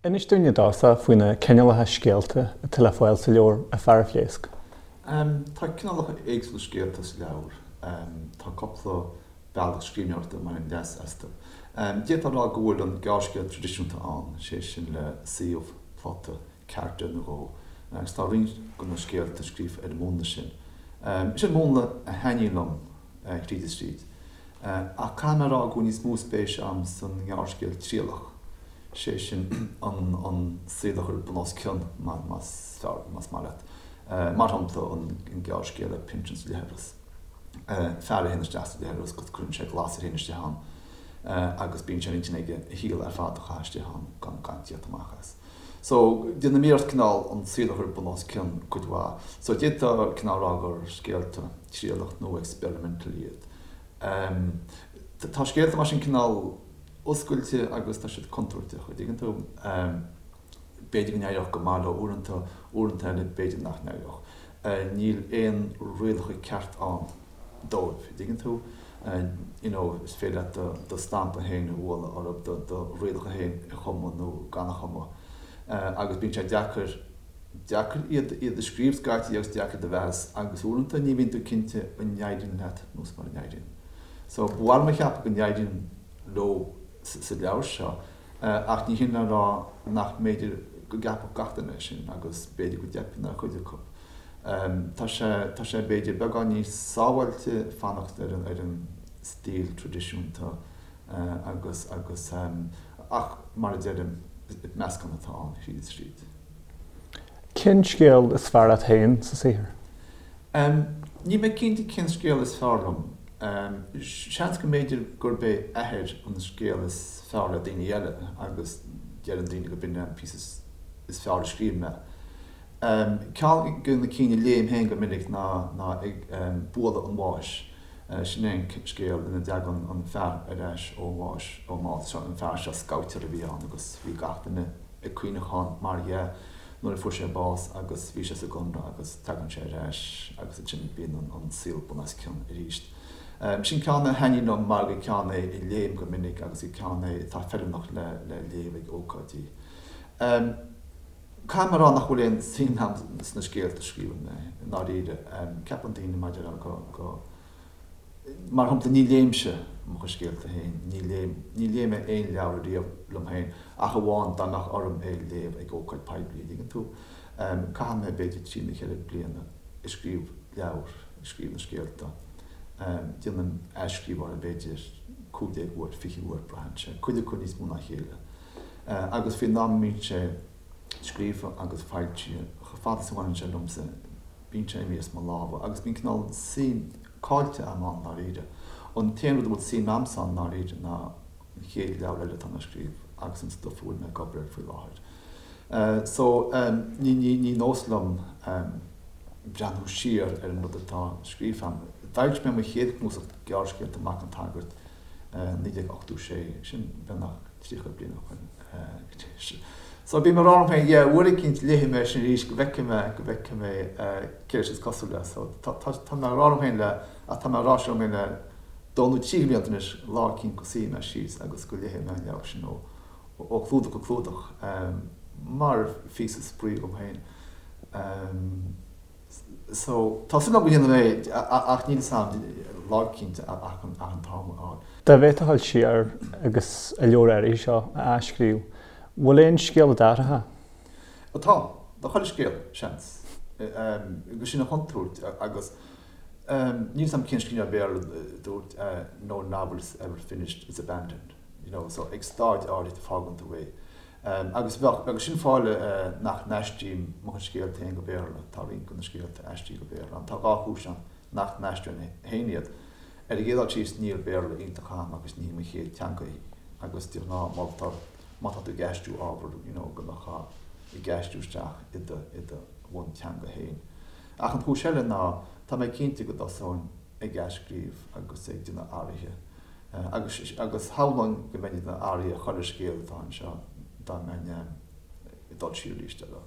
Inis dúinn i dtosach faoi na cineálacha scéalta atá le fáil sa leabhar A Fear a Phléasc. Tá cineálacha éagsúla scéalta sa leabhar. Tá cúpla bealach scríbhneoireachta a mbainim leas astu. D'fhéadfá a rá go bhfuil an gearrscéal traidisiúnta ann, sé sin le suíomh, plota, carachtar nó dhó, agus tá roinnt de na scéalta scríofa ar an múnla sin. Sin múnla a thaitníonn liom tríd is tríd. Ach caithfidh mé a rá go bhfuil níos mó spéise agam san ngearrscéal trialach, sé sin an saol a chur bun os cionn, más fearr, más maith leat. Mar shampla, an gearrscéal Pinsean sa Leithreas. Fear a théann isteach sa leithreas agus cuireann sé glas air féin istigh ann agus bíonn sé ar intinn aige a shaol ar fad a chaitheamh istigh ann gan gan tíocht amach as. So, déanaim iarracht cineál an saol a chur bun os cionn cuid mhaith. So, d'fhéadfá cineál rá gur scéalta trialach nó experimental iad. Tá scéalta mar sin cineál oscailte agus tá siad contúirteach, an dtuigeann tú? B'fhéidir go n-éireodh go maith leo uaireanta, uaireanta eile b'fhéidir nach n-éireodh. Níl aon rialacha ceart ann dóibh, an dtuigeann tú? You know, is féidir leat do do stampa féin a bhualadh orthu, do do rialacha féin a chumadh nó gan a chumadh. Agus bíonn sé deacair, deacair iad iad a scríobh scaití agus deacair iad a mheas agus uaireanta ní bhíonn tú cinnte an n-éiríonn leat nó is mura n-éiríonn. So, ba mhaith liom a cheapadh go n-éiríonn leo sa leabhar seo ach ní hin le rá nach mb'fhéidir go gceapfadh gach duine é sin agus b'fhéidir go dteipeann ar chuid acu. Tá sé, tá sé b'fhéidir beagán níos sábháilte fanacht ar an, ar an stíl traidisiúnta agus, agus, ach mar a deirim, meascán atá ann thríd is tríd. Cén scéal is fearr leat féin sa saothar? Níl mé cinnte cén scéal is fearr liom. Seans go mb'fhéidir gurb é Athair an scéal is fearr le daoine eile agus deireann daoine go b'in é an píosa is fearr a scríobh mé. Ceann de na cinn a léim féin go minic ná Ag Bualadh an Bháis. Sin é an scéal ina dtagann an fear ar ais ón bhás, ón mbás. An fear seo scabhtéir a bhí ann agus bhí gach duine ag caoineachán mar dhea. nuair a fuair sé bás agus bhí sé sa gconradh agus tagann sé ar ais agus ansin bíonn an saol bun os cionn arís. Sin ceann a thaitníonn liom mar gur ceann é a léim go minic agus gur ceann é atá feiliúnach le léamh ag ócáidí. Caithfidh mé a rá nach bhfuil aon suim agam sna scéalta a scríobhann mé, i ndáiríre. Ceapann daoine mar a déarfá go. Mar shampla, ní léimse mo chuid scéalta féin, ní léim, ní léigh mé aon leabhar riamh liom féin ach amháin dá mbeadh orm é a léamh ag ócáid poiblí, an dtuigeann tú? Caitheann mé b'fhéidir trí nó cheithre bliana ag scríobh leabhar, ag scríobh na scéalta. Déanaim athscríobh orthu b'fhéidir 15 uair, 20 uair, braitheann sé, cuid acu níos mó ná a chéile. Agus faoin am a mbíonn sé scríofa agus foilsithe, chomh fada is a bhaineann sé liomsa, bíonn sé imithe as mo lámha agus bíonn cineál suim caillte agam ann ndáiríre. An t-aon rud a bhfuil suim agamsa ann ndáiríre ná an chéad leabhar eile atá mé a scríobh agus an stuif a bhfuil mé ag obair air faoi láthair. So ní ní ní nós liom breathnú siar ar an rud atá scríofa agam. D'fhoilsigh mé mo chéad chnuasach gearrscéalta Mac an tSagairt 1986, sin beagnach 30 bliain ó shin. So bím ag rá liom féin, yeah, uair eicínt léifidh mé sin arís go bhfeicfidh mé, go bhfeicfidh mé céard is cosúil le. So tá, tá, tá mé ag rá liom féin le, ach tá mé ag rá sin liom féin le dó nó trí blianta anois, lá eicínt go suífidh mé síos agus go léifidh mé an leabhar sin ó, ó chlúdach go clúdach, mar phíosa spraoi dhom féin. So, tá súil agam go ndéanfaidh mé é, ach níl 'fhios a'm lá eicínt ach an t-am a fháil. Dá bhféadfá dul siar agus an leabhar áirithe seo a athscríobh, bhfuil aon scéal a d'athrófá? Tá. Tá chuile scéal, seans. Agus sin an chontúirt agus níl 'fhios a'm cén scríbhneoir Béarla a dúirt no novel is ever finished, it's abandoned. You know, so ag staid áirithe fágann tú é. Agus bheadh, agus sin fáth eile nach n-aistrím mo chuid scéalta féin go Béarla, tá roinnt de na scéalta aistrithe go Béarla. Tá dhá chúis ann nach n-aistreoinn féin iad. Ar an gcéad dul síos, níl Béarla iontach agam agus ní hí mo chéad teanga í agus de ghnáth moltar má tá tú ag aistriú ábhar you know go mbeifeá ag aistriú isteach i do, i do bhunteanga féin. Ach an chúis eile ná tá mé cinnte go dtosóinn ag athscríobh agus ag déanamh athruithe Agus agus shamhlóinn go mbeinn ag déanamh athruithe ar chuile scéal atá anseo dá mbeinn ag dul siar arís eile.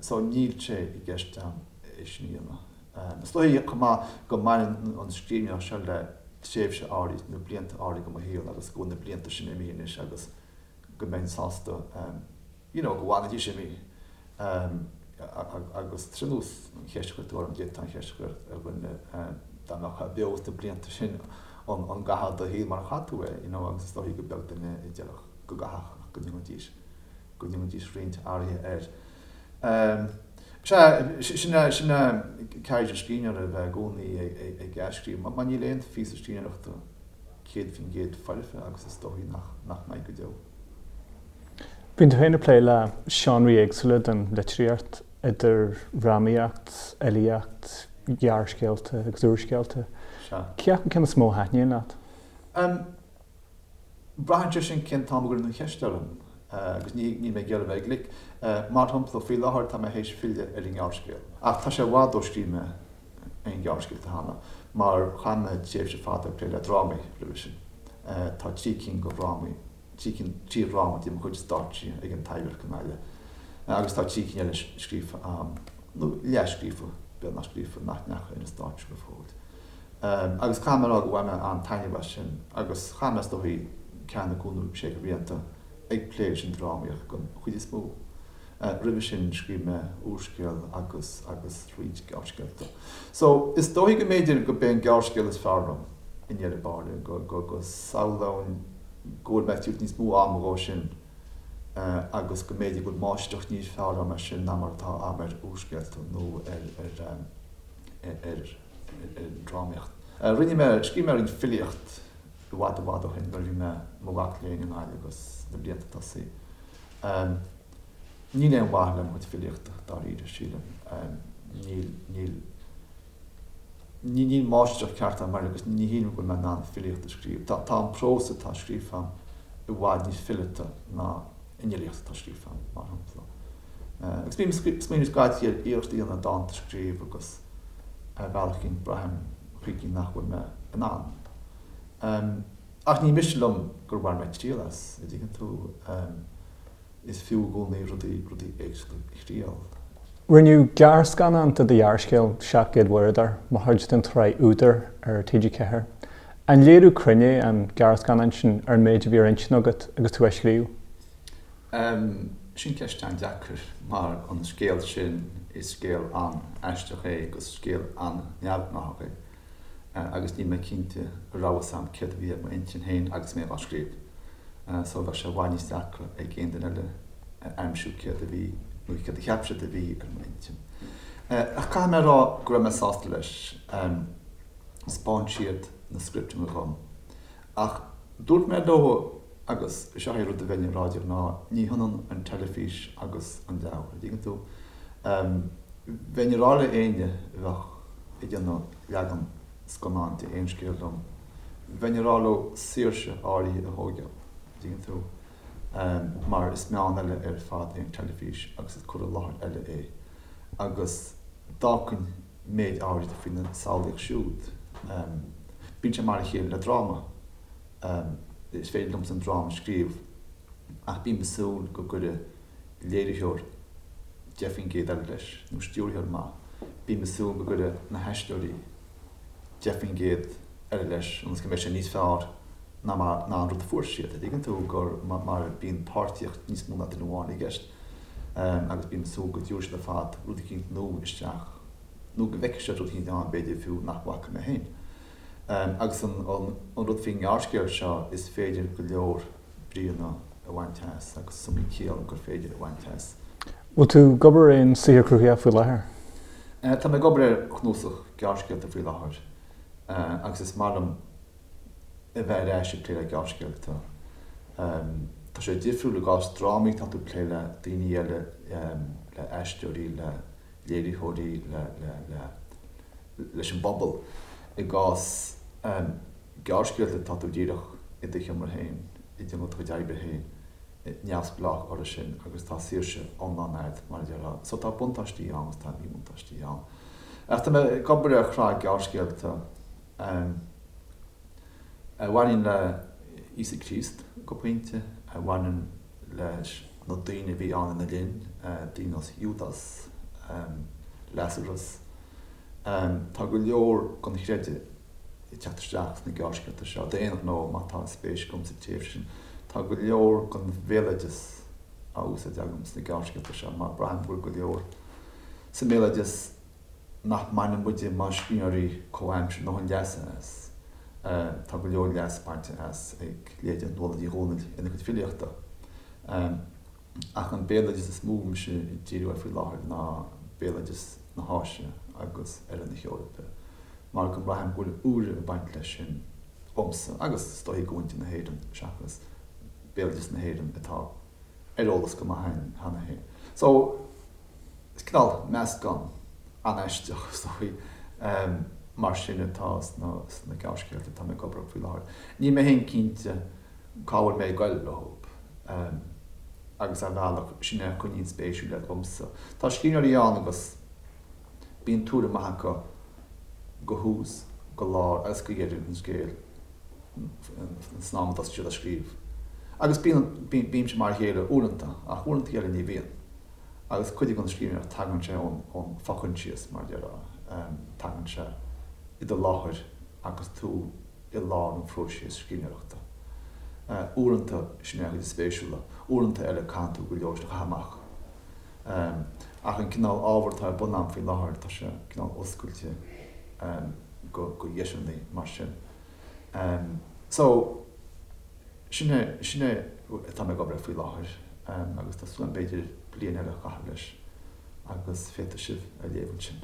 So níl sé i gceist agam é sin a dhéanamh. Is dóigh chomh maith go mbaineann an scríbhneoireacht seo le tréimhse áirid nó blianta áirid de mo shaol agus go bhfuil na blianta sin imithe anois agus go mbeinn sásta. You know, go bhfanfaidís imithe. Agus tá sé ar nós an cheist a chuir tú orm, d'fhéadfá an cheist a chur ar dhuine dá mbeadh beo sna blianta sin an gcaithfeá do shaol mar a chaith tú é, you know, agus is dóichí gur beag duine a déarfadh go gcaithfeadh ach go ndéanfaidís, go ndéanfaidís roinnt athruithe air. Sea, sin é, sin é ceird an scríbhneora, a bheith i gcónaí ag athscríobh, mar níl aon phíosa scríbhneoireachta 100% foirfe agus is dóichí nach mbeidh go deo. Bíonn tú féin ag plé le seánraí éagsúla den litríocht, idir dhrámaíocht, fhilíocht, ghearrscéalta agus úrscéalta. Sea. Cé acu ceann is mó a thaitníonn leat? Em, braitheann sé sin cén t-am a gcuireann an cheist orm, agus ní, níl mé ag iarraidh a bheith glic. Mar shampla, faoi láthair tá mé théis filleadh ar an ngearrscéal. Ach tá sé i bhfad ó scríobh mé aon ghearrscéalta cheana, mar chaith mé tréimhse fada ag plé le drámaí roimhe sin. Tá 3 cinn de dhrámaí 3 cinn, 3 dhráma de mo chuid stáitsithe ag an Taibhdhearc i nGaillimh agus tá 3 cinn eile scríofa a'm, nó leathscríofa, beagnach scríofa, nach ndeachaigh ar an stáitse go fóill. Agus caithfidh mé a rá go bhain mé an-taitneamh as sin agus chaith mé is dóichí ceathair nó cúig nó sé de bhlianta ag plé leis an drámaíocht den chuid is mó. Roimhe sin scríobh mé úrscéal agus agus roinnt gearrscéalta. So, is dóichí go mb'fhéidir go b'é an gearrscéal is fearr liom i ndeireadh báire, go go go samhlóinn go bhfuil mé ag tabhairt níos mó ama dhó sin agus go mb'fhéidir go bhfuil máistreacht níos fearr agam air sin ná mar atá agam ar úrscéalta nó ar ar ar ar an drámaíocht. Rinne mé, scríobh mé roinnt filíocht i bhfad i bhfad ó shin nuair a bhí mé i mo mhac léinn i nGaillimh agus sna blianta tosaigh. Níl aon mhaith le mo chuid filíochta, dáiríre, sílim. Níl, níl, níl máistreacht ceart agam air agus ní shílim go bhfuil mé in ann filíocht a scríobh. Tá, tá an prós atá scríofa agam i bhfad níos fileata ná an fhilíocht atá scríofa agam, mar shampla. Agus bím ag smaoineamh scaití ar iarracht a dhéanamh dánta a scríobh agus ar bhealach éicint braithim chuici nach bhfuil mé in ann. Ach ní miste liom gur bhain mé triail as, a dtuigeann tú. Is fiú i gcónaí rudaí, rudaí éagsúla a thriail. Rinneadh gearrscannán de do ghearrscéal 700 Mhurdair mar chuid den tsraith Údar ar TG4. An léiriú cruinn é an gearrscannán sin ar an méid a bhí ar intinn agat agus tú á scríobh? Sin ceist an-deacair mar an scéal sin, is scéal an-aisteach é agus scéal an-neamhghnáthach é. agus níl mé cinnte an raibh fhios a'm céard a bhí ar m'intinn féin agus mé á scríobh. So bheadh sé i bhfad níos deacra ag aon duine eile a aimsiú céard a bhí, nó céard a cheap siad a bhí ar m'intinn. Ach caithfidh mé a rá go raibh mé sásta leis. Thaispeáin siad na scripteanna dhom. Ach dúirt mé leo, agus seo é rud a bheinn ag rá de ghnáth, ní hionann an teilifís agus an leabhar, an dtuigeann tú? Bheinn ag rá le éinne a bheadh ag déanamh leagan scannáin de aon scéal liom, bheinn ag rá leo saoirse áirithe a thóigeáil, an dtuigeann tú? Mar is meán eile ar fad é an teilifís agus is cur i láthair eile é. Agus d'fhágfainn méid áirithe faoina samhlaíocht siúd. Bíonn sé mar a chéile le dráma. Is féidir liomsa an dráma a scríobh ach bím ag súil go gcuirfidh léiritheoir 10% eile leis, nó stiúrthóir maith. Bím ag súil go gcuirfidh na haisteoirí 10% eile leis ionas go mbeidh sé níos fearr ná mar ná an rud a fuair siad. An dtuigeann tú gur mar bíonn páirtíocht níos mó ná duine amháin i gceist agus bím ag súil go dtabharfaidh siad ar fad rud eicínt nua isteach nó go bhfeicfidh siad rud eicínt ann b'fhéidir fiú nach bhfaca mé féin. Agus an rud faoin ngearrscéal seo is féidir go leor bríonna a bhaint as agus is iomaí ciall gur féidir a bhaint as. Bhfuil tú ag obair ar aon saothar cruthaitheach faoi láthair? Tá mé ag obair ar chnuasach gearrscéalta faoi láthair agus is maith liom a bheith ar ais ag plé le gearrscéalta. Tá sé difriúil i gcás drámaí, tá tú ag plé le daoine eile, le aisteoirí, le léiritheoirí, le, le, le, leis an bpobal. I gcás gearrscéalta tá tú díreach i do sheomra féin, ag déanamh do chuid oibre féin, neamhspleách orthu sin agus tá saoirse iomlán agat, mar a déarfá. So tá buntáistí ann agus tá míbhuntáistí ann. Ach tá mé ag obair ar shraith gearrscéalta a bhaineann le Íosa Críost go pointe, a bhaineann leis na daoine a bhí ann ina linn, daoine ar nós Iúdas, Lasarus. Tá go leor den chreideamh ag teacht isteach sna gearrscéalta seo, d'aon ghnó, má tá spéis agam sa tréimhse sin. Tá go leor den bhéaloideas. á úsáid agam sna gearrscéalta seo mar braithim go bhfuil go leor sa mbéaloideas nach mbaineann muide mar scríbhneoirí comhaimseartha a ndóthain leasa as. Tá go leor leas bainte as ag leithéide Nuala Ní Dhomhnaill ina cuid filíochta. Ach an béaloideas is mó mise ag díriú air faoi láthair ná béaloideas na hÁise agus Oirthear na hEorpa mar go mbraithim go bhfuil úire ag baint leis sin dhomsa agus is dóichí do mhuintir na hÉireann seachas béaloideas na hÉireann atá ar eolas go maith againn cheana féin. So, is cineál meascán an-aisteach is dóichí mar sin atá sna gearrscéalta atá mé ag obair orthu faoi láthair. Níl mé féin cinnte cá bhfuil mé ag goil leo agus ar bhealach sin é a choinníonn spéisiúil iad dhomsa. Tá scríbhneoirí ann agus bíonn tuairim maith acu go thús, go lár agus go deireadh an scéil san am a dtosaíonn siad á scríobh. Agus bíonn, bímse mar a chéile uaireanta, ach uaireanta eile ní bhíonn. Agus cuid den scríbhneoireacht tagann sé ón, ón fhochoinsias, mar a déarfá, tagann sé i do láthair agus tú i lár an phróiseas scríbhneoireachta. Uaireanta sin é an chuid is spéisiúla, uaireanta eile caitheann tú go leor sin a chaitheamh amach. Ach an cineál ábhair atá ar bun agam faoi láthair, tá sé cineál oscailte go dheiseanna mar sin. So, sin é, sin é atá mé ag obair air faoi láthair agus tá súil agam b'fhéidir bliain eile a chaitheamh leis agus féadfaidh sibh a léamh ansin.